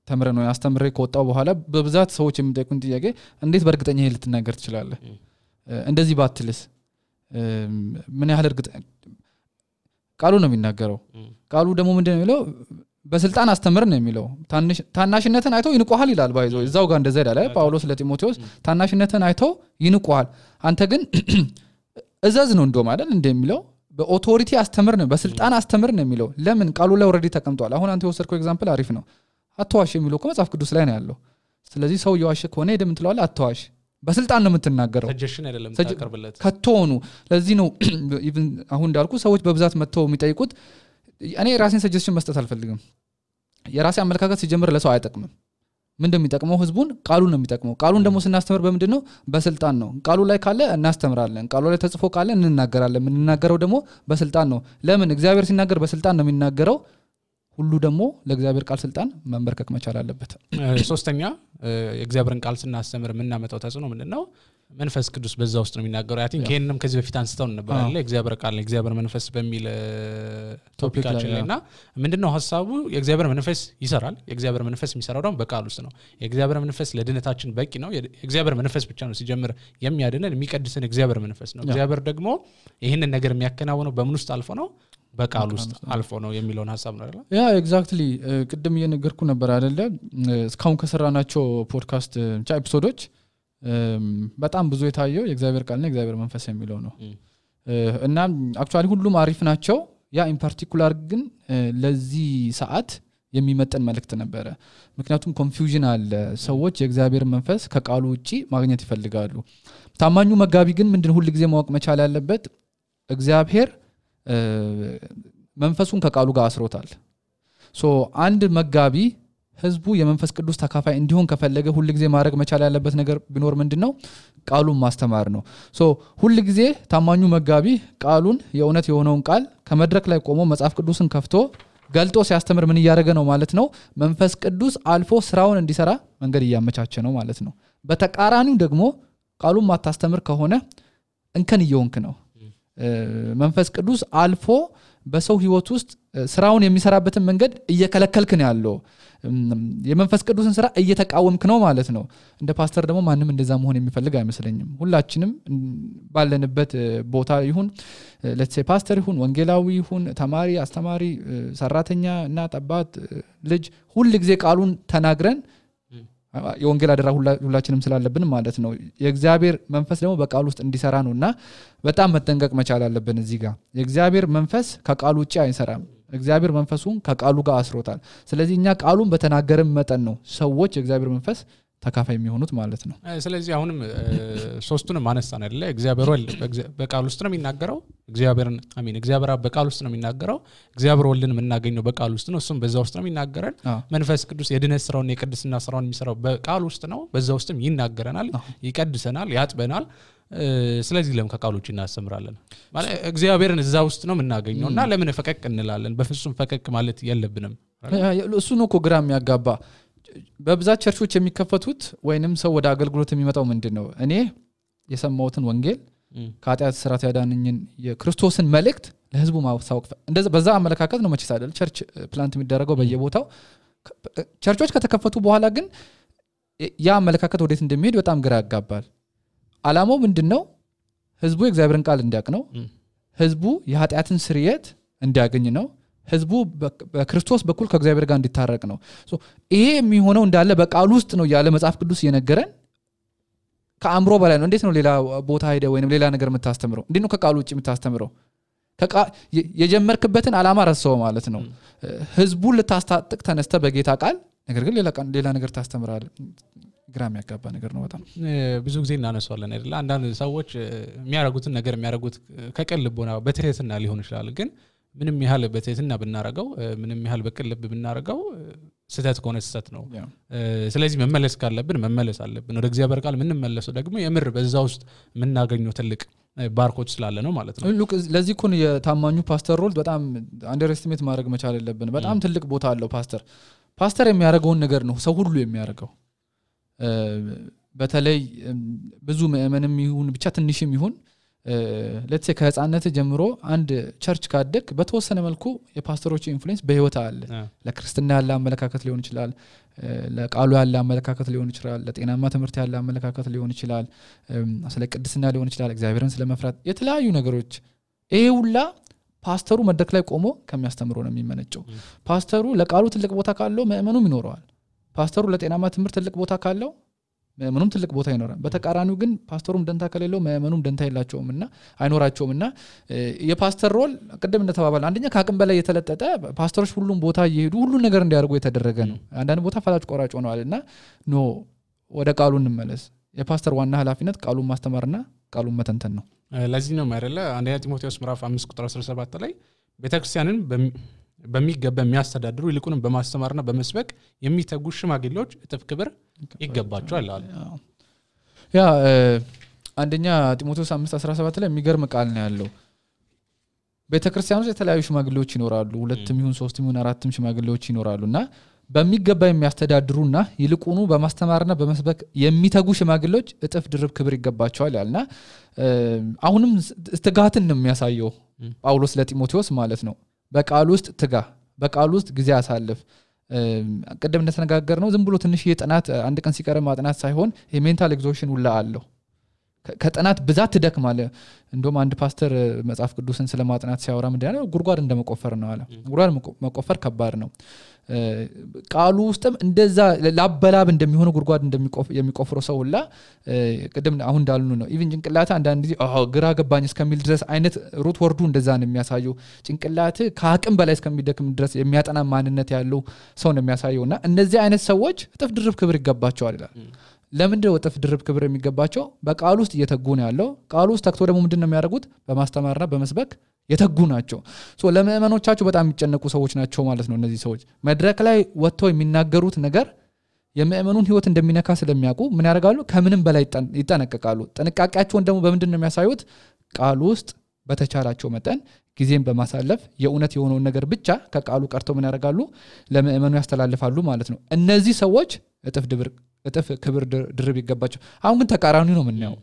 ተምረን ነው ያስተምሬ ከወጣው በኋላ በብዛት ሰዎች የሚጠይቁን ጥያቄ እንዴት በእርግጠኛ ይሄ ልትናገር ትችላለህ እንደዚህ ባትልስ ምን ያህል እርግጠኛ ቃሉ ነው የሚናገረው ቃሉ ደግሞ ምንድነው የሚለው በስልጣን አስተምር ነው የሚለው ታናሽነትን አይተው ይንቆሃል ይላል ባይዞ እዛው ጋር እንደዛ ይላል ጳውሎስ ለጢሞቴዎስ ታናሽነትን አይተው ይንቆሃል አንተ ግን እዛዝ ነው እንደው ማለት እንደሚለው በኦቶሪቲ አስተምር ነው በስልጣን አስተምር ነው የሚለው ለምን ቃሉ ላይ ኦሬዲ ተቀምጧል አሁን አንተ የወሰድከው ኤግዛምፕል አሪፍ ነው አትዋሽ የሚለው መጽሐፍ ቅዱስ ላይ ነው ያለው ስለዚህ ሰው የዋሸ ከሆነ ሄደ ምን ትለዋለህ አትዋሽ በስልጣን ነው የምትናገረው ሰጀሽን አይደለም ታቀርብለት ከተሆኑ ለዚህ ነው ኢቭን አሁን እንዳልኩ ሰዎች በብዛት መጥተው የሚጠይቁት እኔ ራሴን ሰጀሽን መስጠት አልፈልግም የራሴ አመለካከት ሲጀምር ለሰው አይጠቅምም ምንድነው የሚጠቅመው ህዝቡን ቃሉ ነው የሚጠቅመው ቃሉን ደግሞ ስናስተምር በምንድነው በስልጣን ነው ቃሉ ላይ ካለ እናስተምራለን ቃሉ ላይ ተጽፎ ካለ እንናገራለን የምንናገረው ደግሞ በስልጣን ነው ለምን እግዚአብሔር ሲናገር በስልጣን ነው የሚናገረው ሁሉ ደግሞ ለእግዚአብሔር ቃል ስልጣን መንበርከክ መቻል አለበት ሶስተኛ የእግዚአብሔርን ቃል ስናስተምር ምንናመጣው ተጽዕኖ ምንድነው መንፈስ ቅዱስ በዛ ውስጥ ነው የሚናገረው አይ ቲንክ ይሄንንም ከዚህ በፊት አንስተው ነበር አይደል እግዚአብሔር ቃል እግዚአብሔር መንፈስ በሚል ቶፒካችን ላይና ምንድነው ሐሳቡ የእግዚአብሔር መንፈስ ይሰራል የእግዚአብሔር መንፈስ የሚሰራው ደግሞ በቃል ውስጥ ነው የእግዚአብሔር መንፈስ ለድነታችን በቂ ነው የእግዚአብሔር መንፈስ ብቻ ነው ሲጀምር የሚያድነን የሚቀድሰን እግዚአብሔር መንፈስ ነው እግዚአብሔር ደግሞ ይሄንን ነገር የሚያከናውነው በምን ውስጥ አልፎ ነው በቃል ውስጥ አልፎ ነው የሚለውን ሐሳብ ነው አይደል ያ ኤግዛክትሊ ቅድም እየነገርኩ ነበር አይደለ እስካሁን ከሰራናቸው ፖድካስት ኤፒሶዶች በጣም ብዙ የታየው የእግዚአብሔር ቃልና የእግዚአብሔር መንፈስ የሚለው ነው እና አክቹአሊ ሁሉም አሪፍ ናቸው ያ ኢን ፓርቲኩላር ግን ለዚህ ሰዓት የሚመጣን መልእክት ነበር ምክንያቱም ኮንፊውዥን አለ ሰዎች የእግዚአብሔር መንፈስ ከቃሉ ውጪ ማግኘት ይፈልጋሉ ታማኙ መጋቢ ግን ምንድነው ሁሉ ጊዜ ማወቅ መቻል ያለበት እግዚአብሔር መንፈሱን ከቃሉ ጋር አስሮታል ሶ አንድ መጋቢ ህዝቡ የመንፈስ ቅዱስ ተካፋይ እንዲሆን ከፈለገ ሁሉ ጊዜ ማድረግ መቻል ያለበት ነገር ቢኖር ምንድነው ቃሉን ማስተማር ነው ሶ ሁሉ ጊዜ ታማኙ መጋቢ ቃሉን የእውነት የሆነውን ቃል ከመድረክ ላይ ቆሞ መጽሐፍ ቅዱስን ከፍቶ ገልጦ ሲያስተምር ምን ያደረገ ነው ማለት ነው መንፈስ ቅዱስ አልፎ ስራውን እንዲሰራ መንገድ ያመቻቸ ነው ማለት ነው በተቃራኒው ደግሞ ቃሉን ማታስተምር ከሆነ እንከን እየሆንክ ነው መንፈስ ቅዱስ አልፎ በሰው ህይወት ውስጥ ስራውን የሚሰራበትን መንገድ እየከለከልክ ነው ያለው የመንፈስ ቅዱስን ስራ እየተቃወምክ ነው ማለት ነው እንደ ፓስተር ደግሞ ማንንም እንደዛ መሆን የሚፈልግ አይመስለኝም ሁላችንም ባለንበት ቦታ ይሁን let's say ፓስተር ይሁን ወንጌላዊ ይሁን ተማሪ አስተማሪ ሰራተኛ እና አባት ልጅ ሁሉ ጊዜ ቃሉን ተናግረን የወንጌል አደራ ሁላችንም ስላለብን ማለት ነው የእግዚአብሔር መንፈስ ደግሞ በቃሉ ውስጥ እንዲሰራ ነውና በጣም መጠንቀቅ መቻል አለብን እዚህ ጋር የእግዚአብሔር መንፈስ ከቃሉ ውጪ አይሰራም እግዚአብሔር መንፈሱን ከቃሉ ጋር አስሮታል ስለዚህ እኛ ቃሉን በተናገረን መጠን ነው ሰዎች የእግዚአብሔር መንፈስ ተካፋይ የሚሆኑት ማለት ነው ስለዚህ አሁንም ሶስቱንም አነሳን አይደለ እግዚአብሔር ወልድ በቃል ውስጥ ነው የሚናገረው እግዚአብሔር በቃል ውስጥ ነው የሚናገረው እግዚአብሔር ወልድን የምናገኘው በቃል ውስጥ ነው እሱም በዛ ውስጥ ነው የሚናገረን መንፈስ ቅዱስ የድነት ስራውን የቅድስና ስራውን የሚሰራው በቃል ውስጥ ነው በዛ ውስጥም ይናገረናል ይቀድሰናል ያጥበናል ስለዚህ ለምን ከቃሎች እናስተምራለን ማለት እግዚአብሔርን እዛ ውስጥ ነው የምናገኘውና ለምን ፈቀቅ እንላለን በፍጹም ፈቀቅ ማለት የለብንም እሱ ነው እኮ ግራም ያጋባ በብዛት ቸርቾች የሚከፈቱት ወይንም ሰው ወደ አገልግሎት የሚመጣው ምንድነው እኔ የሰማሁትን ወንጌል ከኃጢአት ስራት ያዳነኝን የክርስቶስን መልእክት ለህዝቡ ማሳወቅ እንደዛ በዛ አመለካከት ነው መቼ ሳይደል ቸርች ፕላንት የሚደረገው በየቦታው ቸርቾች ከተከፈቱ በኋላ ግን ያ አመለካከት ወዴት እንደሚሄድ በጣም ግራ ያጋባል አላማው ምንድነው ህዝቡ የእግዚአብሔርን ቃል እንዲያውቅ ነው ህዝቡ የኃጢአትን ስርየት እንዲያገኝ ነው ህዝቡ በክርስቶስ በኩል ከእግዚአብሔር ጋር እንዲታረቅ ነው ይሄ የሚሆነው እንዳለ በቃል ውስጥ ነው ያለ መጽሐፍ ቅዱስ እየነገረን ከአምሮ በላይ ነው እንዴት ነው ሌላ ቦታ ሄደ ወይንም ሌላ ነገር የምታስተምረው እንዴት ነው ከቃሉ ውጪ የምታስተምረው የጀመርክበትን አላማ ረሳው ማለት ነው ህዝቡን ልታስታጥቅ ተነስተ በጌታ ቃል ነገር ግን ሌላ ነገር ታስተምራለህ ግራም ያጋባ ነገር ነው በጣም ብዙ ጊዜ እናነሳዋለን አይደል አንዳንድ ሰዎች የሚያረጉትን ነገር የሚያረጉት ከቀልቦና በትህትና ሊሆን ይችላል ግን ምንም ያህል በትህትና ብናረጋው ምንም ያህል በቀልብ ብናረጋው ስተት ከሆነ ስተት ነው ስለዚህ መመለስ ካለብን መመለስ አለብን ወደ እግዚአብሔር ቃል ምን መለሰው ደግሞ የምር በዛ ውስጥ ምናገኘው ትልቅ ባርኮች ስላለ ነው ማለት ነው ሉክ ለዚህ ኮን የታማኙ ፓስተር ሮል በጣም አንደርስቲሜት ማድረግ መቻል አለብን በጣም ትልቅ ቦታ አለው ፓስተር የሚያረጋውን ነገር ነው ሰው ሁሉ የሚያረጋው በተለይ ብዙ ምእመንም ይሁን ብቻ ትንሽም ይሁን let's say ከህፃንነት ጀምሮ አንድ ቸርች ካደክ በተወሰነ መልኩ የፓስተሮች ኢንፍሉዌንስ በህይወት አለ ለክርስቲና ያለ አመለካከት ሊሆን ይችላል ለቃሉ ያለ አመለካከት ሊሆን ይችላል ለጤናማ ትምህርት ያለ አመለካከት ሊሆን ይችላል ስለ ቅድስና ሊሆን ይችላል እግዚአብሔርን ስለመፍራት የተለያዩ ነገሮች ይሄ ሁላ ፓስተሩ መድረክ ላይ ቆሞ ከሚያስተምረው ነው የሚመነጨው ፓስተሩ ለቃሉ ትልቅ ቦታ ካለው ምእመኑም ይኖረዋል ፓስተሩ ለጤናማ ትምህርት ትልቅ ቦታ ካለው ምንም ትልቅ ቦታ ይኖራል በተቃራኒው ግን ፓስተሩም ደንታ ከሌለው ምእመኑም ደንታ የላቸውምና አይኖራቸውምና የፓስተር ሮል ቀደም እንደተባባለ አንደኛ ከአቅም በላይ የተለጠጠ ፓስተሮች ሁሉም ቦታ እየሄዱ ሁሉ ነገር እንዲያርጉ የተደረገ ነው አንዳንድ ቦታ ፈላጭ ቆራጭ ሆነዋልና ኖ ወደ ቃሉ እንመለስ የፓስተር ዋና ኃላፊነት ቃሉን ማስተማርና ቃሉን መተንተን ነው ለዚህ ነው ማለት አንደኛ ጢሞቴዎስ ምዕራፍ 5:17 ላይ ቤተክርስቲያንን በሚገባ የሚያስተዳድሩ ይልቁንም በማስተማርና በመስበክ የሚተጉ ሽማግሌዎች እጥፍ ክብር ይገባቸዋል አለ ያ አንደኛ ጢሞቴዎስ 5:17 ላይ የሚገርም ቃል ነው ያለው ቤተክርስቲያኖች የተለያዩ ሽማግሌዎች ይኖራሉ ሁለትም ይሁን ሶስትም ይሁን አራትም ሽማግሌዎች ይኖራሉና በሚገባ የሚያስተዳድሩና ይልቁኑ በማስተማርና በመስበክ የሚተጉ ሽማግሌዎች እጥፍ ድርብ ክብር ይገባቸዋል ያልና አሁንም ትጋትን ነው የሚያሳየው ጳውሎስ ለጢሞቴዎስ ማለት ነው በቃል ውስጥ ትጋ በቃል ውስጥ ጊዜ አሳልፍ ቀደም እንደተነጋገርነው ዝም ብሎ ትንሽ የጥናት አንድ ቀን ሲቀር ማጥናት ሳይሆን የሜንታል ኤግዞሽን ሁላ አለው ከጥናት ብዛት ትደክማለ እንደውም አንድ ፓስተር መጽሐፍ ቅዱስን ስለማጥናት ሲያወራ ምንድነው ጉርጓድ እንደመቆፈር ነው አለ ጉርጓድ መቆፈር ከባድ ነው ቃሉ ውስጥም እንደዛ ላበላብ እንደሚሆነ ጉርጓድ የሚቆፍረው ሰው ሁላ ቀደም አሁን እንዳልኑ ነው ኢቭን ጭንቅላታ አንዳንድ ጊዜ ግራ ገባኝ እስከሚል ድረስ አይነት ሩት ወርዱ እንደዛ ነው የሚያሳየው ጭንቅላት ከአቅም በላይ እስከሚደክም ድረስ የሚያጠና ማንነት ያለው ሰው ነው የሚያሳየውና እነዚህ አይነት ሰዎች እጥፍ ድርብ ክብር ይገባቸዋል ይላል ለምንድነው እጥፍ ድርብ ክብር የሚገባቸው በቃሉ ውስጥ እየተጉ ነው ያለው ቃሉ ውስጥ ተክቶ ደግሞ ምንድነው የሚያደርጉት በማስተማርና በመስበክ የተጉ ናቸው ለምእመኖቻቸው በጣም የሚጨነቁ ሰዎች ናቸው ማለት ነው እነዚህ ሰዎች መድረክ ላይ ወጥተው የሚናገሩት ነገር የምእመኑን ህይወት እንደሚነካ ስለሚያውቁ ምን ያደርጋሉ ከምንም በላይ ይጠነቀቃሉ ጥንቃቄያቸውን ደግሞ በምንድነው የሚያሳዩት ቃሉ ውስጥ በተቻላቸው መጠን ጊዜን በማሳለፍ የኡነት የሆነውን ነገር ብቻ ከቃሉ ቀርተው ምን ያደርጋሉ ለምእመኑ ያስተላልፋሉ ማለት ነው እነዚህ ሰዎች እጥፍ ክብር ድርብ ይገባቸው አሁን ግን ተቃራኒ ነው ምንያው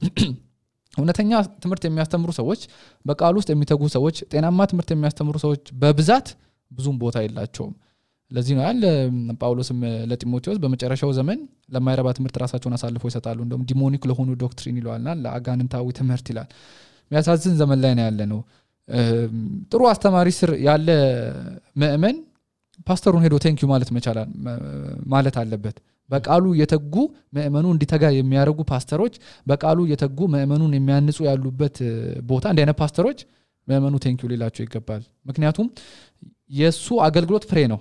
እውነተኛ ትምህርት የሚያስተምሩ ሰዎች በቃሉ ውስጥ የሚተጉ ሰዎች ጤናማ ትምህርት የሚያስተምሩ ሰዎች በብዛት ብዙም ቦታ የላቸውም ለዚህ ነው ያለ ጳውሎስም ለጢሞቴዎስ በመጨረሻው ዘመን ለማይረባ ትምህርት ራሳቸውን አሳልፈው ይሰጣሉ እንደውም ዲሞኒክ ለሆኑ ዶክትሪን ይሏልና ለአጋንንታዊ ትምህርት ይላል የሚያሳዝን ዘመን ላይ ነው ያለ ነው ጥሩ አስተማሪ ስር ያለ ምእመን ፓስተሩን ሄዶ ቴንክ ዩ ማለት አለበት በቃሉ የተጉ ምእመኑ እንዲተጋ የሚያረጉ ፓስተሮች በቃሉ የተጉ ምእመኑን የሚያንጹ ያሉበት ቦታ እንደነ ፓስተሮች ምእመኑ ቴንክ ዩ ሊላቸው ይገባል ምክንያቱም የሱ አገልግሎት ፍሬ ነው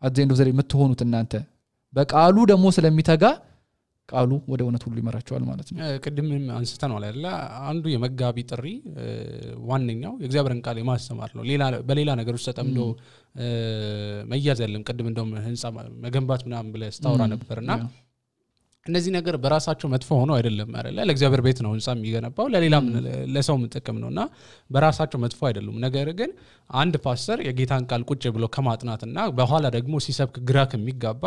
አዘንዶ ዘሪ የምትሆኑት እናንተ በቃሉ ደግሞ ስለሚተጋ ቃሉ ወደ እውነት ሁሉ ይመራቸዋል ማለት ነው ቅድም አንስተናል አይደል አንዱ የመጋቢ ጥሪ ዋነኛው የእግዚአብሔርን ቃል የማስተማር ነው በሌላ ነገሮች ተጠምዶ መያዝ ያለም ቅድም እንደውም ህንጻ መገንባት ምናምን ብለ ስታወራ ነበርና እነዚህ ነገር በራሳቸው መጥፎ ሆኖ አይደለም አይደል ለእግዚአብሔር ቤት ነው ህንጻ የሚገነባው ለሌላም ለሰው መጠቀም ነውና በራሳቸው መጥፎ አይደሉም ነገር ግን አንድ ፓስተር የጌታን ቃል ቁጭ ብሎ ከማጥናትና በኋላ ደግሞ ሲሰብክ ግራ ከሚጋባ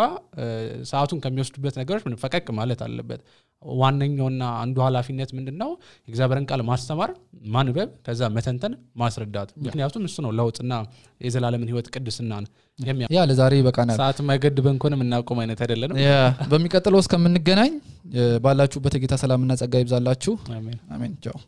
ሰዓቱን ከሚወስዱበት ነገሮች ምን ፈቀቅ ማለት አለበት ዋነኛውና አንዱ ኃላፊነት ምንድነው የእግዚአብሔርን ቃል ማስተማር ማንበብ ከዛ መተንተን ማስረዳት ምክንያቱም እሱ ነው ለውጥና የዘላለምን ህይወት ቅድስናን ያ ለዛሬ በቃና ሰዓት ማይገድበን ኮንም እናቆም አይነት አይደለም ያ በሚቀጥለው እስከምንገናኝ ባላችሁበት የጌታ ሰላምና ጸጋ ይብዛላችሁ አሜን አሜን ቻው